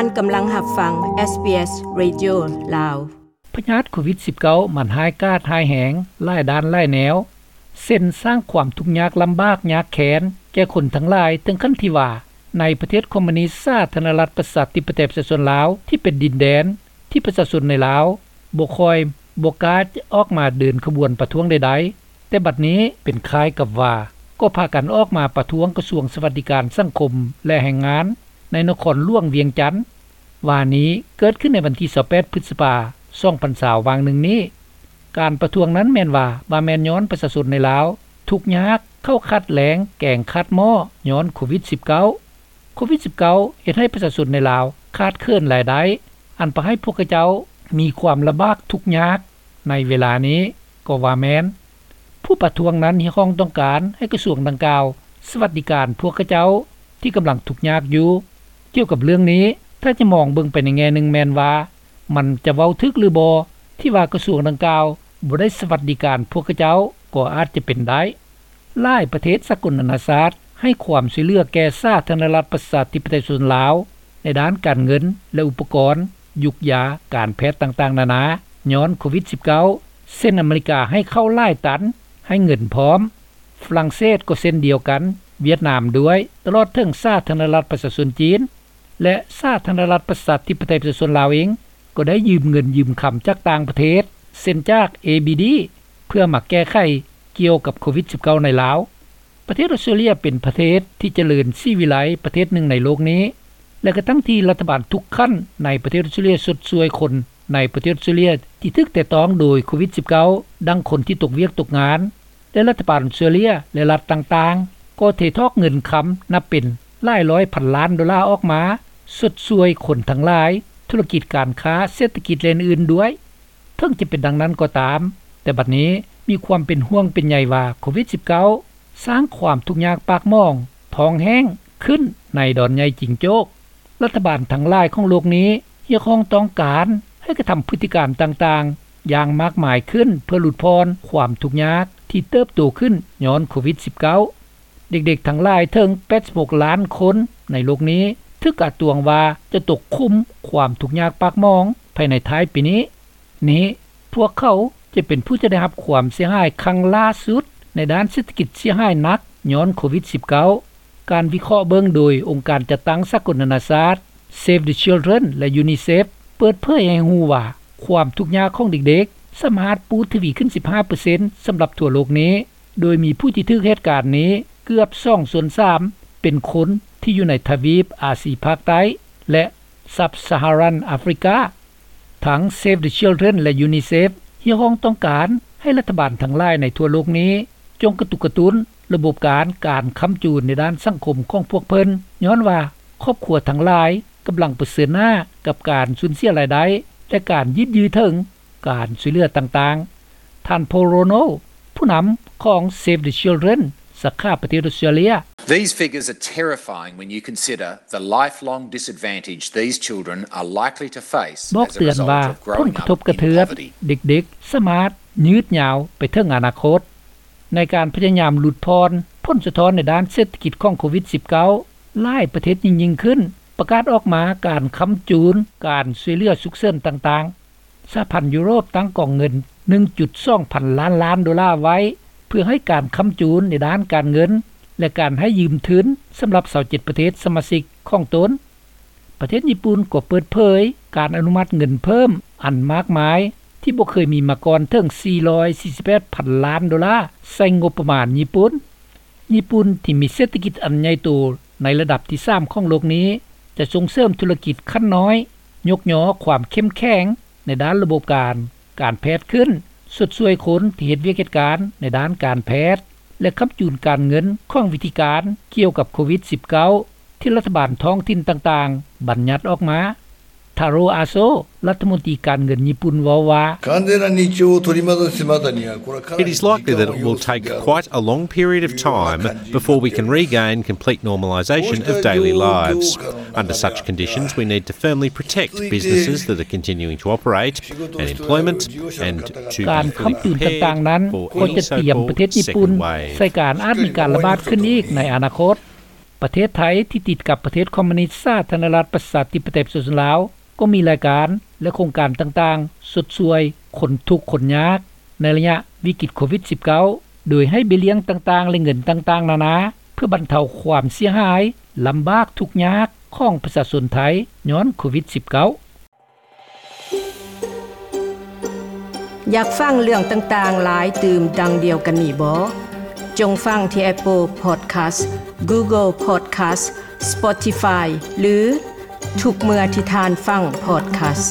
ທ່ານກຳລັງຮັບຟັງ ເອສບີເອສ Radio ລາວ. ພະຍາດໂຄວິດສິບເກົ້າ ມັນຮ້າຍກາດຮ້າຍແຮງ ຫຼາຍດ້ານຫຼາຍແນວ ເຊັ່ນ ສ້າງຄວາມທຸກຍາກລຳບາກຍາກແຄ້ນແກ່ຄົນທັງຫຼາຍ ເຖິງຂັ້ນທີ່ວ່າ ໃນປະເທດຄອມມູນິດສາທາລະນະລັດປະຊາທິປະໄຕປະຊາຊົນລາວ ທີ່ເປັນດິນແດນທີ່ປະຊາຊົນໃນລາວບໍ່ຄ່ອຍ ບໍ່ກ້າຈະອອກມາເດີນຂະບວນປະທ້ວງໃດໆ, ແຕ່ບັດນີ້ເປັນຄ້າຍກັບວ່າ ກໍພາກັນອອກມາປະທ້ວງກະຊວງສະຫວັດດີການສັງຄົມ ແລະ ແຮງງານ ໃນນະຄອນຫຼວງວຽງຈັນ. ວານນີ້ເກີດຂຶ້ນໃນວັນທີຊາວແປດ ພຶດສະພາ ສອງພັນຊາວ ຫວ່າງໜຶ່ງນີ້. ການປະທ້ວງນັ້ນແມ່ນວ່າ ວ່າແມ່ນຍ້ອນປະຊາຊົນໃນລາວທຸກຍາກ, ເຂົ້າຂາດແລງ, ແກງຂາດໝໍ້ ຍ້ອນໂຄວິດສິບເກົ້າ. ໂຄວິດສິບເກົ້າ ເຮັດໃຫ້ປະຊາຊົນໃນລາວຂາດເຂີນລາຍໄດ້ ອັນປະໃຫ້ພວກເຂົາເຈົ້າມີຄວາມລຳບາກທຸກຍາກໃນເວລານີ້ກໍວ່າແມ່ນ. ຜູ້ປະທ້ວງນັ້ນຮຽກຮ້ອງຕ້ອງການໃຫ້ກະຊວງດັ່ງກ່າວສະຫວັດດີການພວກເຂົາເຈົ້າທີ່ກຳລັງທຸກຍາກຢູ່. ກ່ຽວກັບເລື່ອງນີ້ ຖ້າຈະມອງເບິ່ງໄປໃນແງ່ໜຶ່ງແມ່ນວ່າ ມັນຈະເວົ້າຖືກຫຼືບໍ່ ທີ່ວ່າກະຊວງດັ່ງກ່າວບໍ່ໄດ້ສະຫວັດດີການພວກເຂົາເຈົ້າ ກໍອາດຈະເປັນໄດ້. ຫຼາຍປະເທດສາກົນນານາຊາດໃຫ້ຄວາມຊ່ວຍເຫຼືອແກ່ສາທາລະນະລັດປະຊາທິປະໄຕປະຊາຊົນລາວ ໃນດ້ານການເງິນ ແລະ ອຸປະກອນ, ຢຸກຢາ, ການແພດຕ່າງໆນານາ ຍ້ອນໂຄວິດສິບເກົ້າ ເຊັ່ນ ອາເມລິກາໃຫ້ເຂົ້າຫຼາຍຕັນ, ໃຫ້ເງິນພ້ອມ, ຝຣັ່ງເສດກໍເຊັ່ນດຽວກັນ, ຫວຽດນາມດ້ວຍ, ຕະຫຼອດເຖິງສາທາລະນະລັດປະຊາຊົນຈີນ ແລະ ສາທາລະນະລັດປະຊາທິປະໄຕປະຊາຊົນລາວເອງ ກໍໄດ້ຢືມເງິນຢືມຄຳຈາກຕ່າງປະເທດ ເຊັ່ນຈາກ ເອບີດີ ເພື່ອມາແກ້ໄຂກ່ຽວກັບໂຄວິດສິບເກົ້າໃນລາວ. ປະເທດອອສເຕຣເລຍເປັນປະເທດທີ່ຈະເລີນສີວິໄລປະເທດໜຶ່ງໃນໂລກນີ້ ແລະ ກະທັງທີ່ລັດຖະບານທຸກຂັ້ນໃນປະເທດອອສເຕຣເລຍຊົດຊ່ວຍຄົນໃນປະເທດອອສເຕຣເລຍທີ່ຖືກແຕະຕ້ອງໂດຍໂຄວິດສິບເກົ້າ ດັ່ງຄົນທີ່ຕົກວຽກຕົກງານ ແລະ ລັດຖະບານອອສເຕຣເລຍ ແລະ ລັດຕ່າງໆ ກໍເທຖອກເງິນຄຳນັບເປັນຫຼາຍຮ້ອຍພັນລ້ານໂດລາອອກມາຊົດຊ່ວຍຄົນທັງຫຼາຍ, ທຸລະກິດການຄ້າ, ເສດຖະກິດ ແລະ ອື່ນໆດ້ວຍ. ເຖິງຈະເປັນດັ່ງນັ້ນກໍຕາມ, ແຕ່ບັດນີ້ມີຄວາມເປັນຫ່ວງເປັນໃຍວ່າໂຄວິດສິບເກົ້າ ສ້າງຄວາມທຸກຍາກປາກໝອງ, ທ້ອງແຫ້ງຂຶ້ນໃນດອນໃຫຍ່ຈິງໂຈ້ກ. ລັດຖະບານທັງຫຼາຍຂອງໂລກນີ້ຮຽກຮ້ອງຕ້ອງການໃຫ້ກະທຳພຶດຕິການຕ່າງໆຢ່າງມາກມາຍຂຶ້ນ ເພື່ອຫຼຸດຜ່ອນຄວາມທຸກຍາກທີ່ເຕີບໂຕຂຶ້ນຍ້ອນໂຄວິດສິບເກົ້າ. ເດັກໆທັງຫຼາຍເຖິງແປດສິບຫົກລ້ານຄົນໃນໂລກນີ້ ຖືກກະຕວງວ່າຈະຕົກຂຸມຄວາມທຸກຍາກປາກໝອງພາຍໃນທ້າຍປີນີ້. ນີ້ພວກເຂົາຈະເປັນຜູ້ທີ່ໄດ້ຮັບຄວາມເສຍຫາຍຄັ້ງຫຼ້າສຸດໃນດ້ານເສດຖະກິດ ເສຍຫາຍໜັກຍ້ອນໂຄວິດສິບເກົ້າ. ການວິເຄາະເບິ່ງໂດຍອົງການຈັດຕັ້ງສາກົນນານາຊາດ Save the Children ແລະ UNICEF ເປີດເຜີຍໃຫ້ຮູ້ວ່າ ຄວາມທຸກຍາກຂອງເດັກໆສາມາດປູດທະວີຂຶ້ນສິບຫ້າເປີເຊັນສຳລັບທົ່ວໂລກນີ້, ໂດຍມີຜູ້ທີ່ຖືກເຫດການນີ້ເກືອບສອງສ່ວນສາມເປັນຄົນທີ່ຢູ່ໃນທະວີບອາຊີພາກໃຕ້ ແລະ Sub-Saharan Africa. ທັງ Save the Children ແລະ UNICEF ຮຽກຮ້ອງຕ້ອງການໃຫ້ລັດຖະບານທັງຫຼາຍໃນທົ່ວໂລກນີ້ ຈົ່ງກະຕຸກກະຕຸ້ນລະບົບການ ການຄ້ຳຈູນໃນດ້ານສັງຄົມຂອງພວກເພິ່ນ, ຍ້ອນວ່າຄອບຄົວທັງຫຼາຍກຳລັງປະເຊີນໜ້າກັບການສູນເສຍລາຍໄດ້ ແລະ ການຍືດຍື້ເຖິງການຊ່ວຍເຫຼືອຕ່າງໆ. ທ່ານ Paul Ronald ຜູ້ນຳຂອງ Save the Children ສາຂາປະເທດອອສເຕຣເລຍ. These figures are terrifying when you consider the lifelong disadvantage these children are likely to face ບອກເຕືອນວ່າ ຜົນກະທົບກະເທືອນເດັກໆສາມາດຍືດຍາວໄປເຖິງອະນາຄົດ. ໃນການພະຍາຍາມຫຼຸດຜ່ອນຜົນສະທ້ອນໃນດ້ານເສດຖະກິດຂອງໂຄວິດສິບເກົ້າ ຫຼາຍປະເທດຍິ່ງໆຂຶ້ນ ປະກາດອອກມາການຄ້ຳຈູນການຊ່ວຍເຫຼືອສຸກເສີນຕ່າງໆ. ສະຫະພັນຢູໂຣບຕັ້ງກອງເງິນໜຶ່ງຈຸດສອງພັນລ້ານລ້ານໂດລາໄວ້ ເພື່ອໃຫ້ການຄ້ຳຈູນໃນດ້ານການເງິນ ແລະ ການໃຫ້ຢືມທຶນສຳລັບຊາວເຈັດປະເທດສະມາຊິກຂອງຕົນ. ປະເທດຍີ່ປຸ່ນກໍເປີດເຜີຍການອະນຸມັດເງິນເພີ່ມອັນມາກມາຍທີ່ບໍ່ເຄີຍມີມາກ່ອນເຖິງສີ່ຮ້ອຍສີ່ສິບແປດພັນລ້ານໂດລາໃສ່ງົບປະມານຍີ່ປຸ່ນ. ຍີ່ປຸ່ນທີ່ມີເສດຖະກິດອັນໃຫຍ່ໂຕໃນລະດັບທີສາມຂອງໂລກນີ້ ຈະສົ່ງເສີມທຸລະກິດຂັ້ນນ້ອຍ, ຍົກຍໍຄວາມເຂັ້ມແຂງໃນດ້ານລະບົບການ ການແພດຂຶ້ນ, ຊົດຊ່ວຍຄົນທີ່ເຮັດວຽກເຮັດການໃນດ້ານການແພດ ແລະ ຄ້ຳຈູນການເງິນຂອງວິທີການກ່ຽວກັບໂຄວິດສິບເກົ້າ ທີ່ລັດຖະບານທ້ອງຖິ່ນຕ່າງໆບັນຍັດອອກມາ. ທາໂຣ ອາໂຊ ລັດຖະມົນຕີການເງິນຍີ່ປຸ່ນເວົ້າວ່າ It is likely that it will take quite a long period of time before we can regain complete normalisation of daily lives. Under such conditions, we need to firmly protect businesses that are continuing to operate and employment and to be fully prepared for any so-called second wave. ການຄ້ຳຈູນຕ່າງໆນັ້ນກໍຈະຕຽມປະເທດຍີ່ປຸ່ນໃສ່ການອາດມີການລະບາດຂຶ້ນອີກໃນອະນາຄົດ. ປະເທດໄທ ທີ່ຕິດກັບປະເທດຄອມມູນິດ ສາທາລະນະລັດ ປະຊາທິປະໄຕ ປະຊາຊົນລາວ ກໍມີລາຍການ ແລະ ໂຄງການຕ່າງໆ ຊົດຊ່ວຍຄົນທຸກຄົນຍາກ ໃນໄລຍະວິກິດໂຄວິດ-19 ໂດຍໃຫ້ເບ້ຍລ້ຽງຕ່າງໆ ແລະ ເງິນຕ່າງໆນານາ ເພື່ອບັນເທົາຄວາມເສຍຫາຍ ລຳບາກທຸກຍາກ ຂອງປະຊາຊົນໄທ ຍ້ອນໂຄວິດ-19. ຢາກຟັງເລື່ອງຕ່າງໆຫຼາຍຕື່ມດັ່ງດຽວກັນນີ້ບໍ? ຈົ່ງຟັງທີ່ Apple Podcast, Google Podcast, Spotify ຫຼື ທຸກເມື່ອທີ່ທ່ານຟັງ podcast.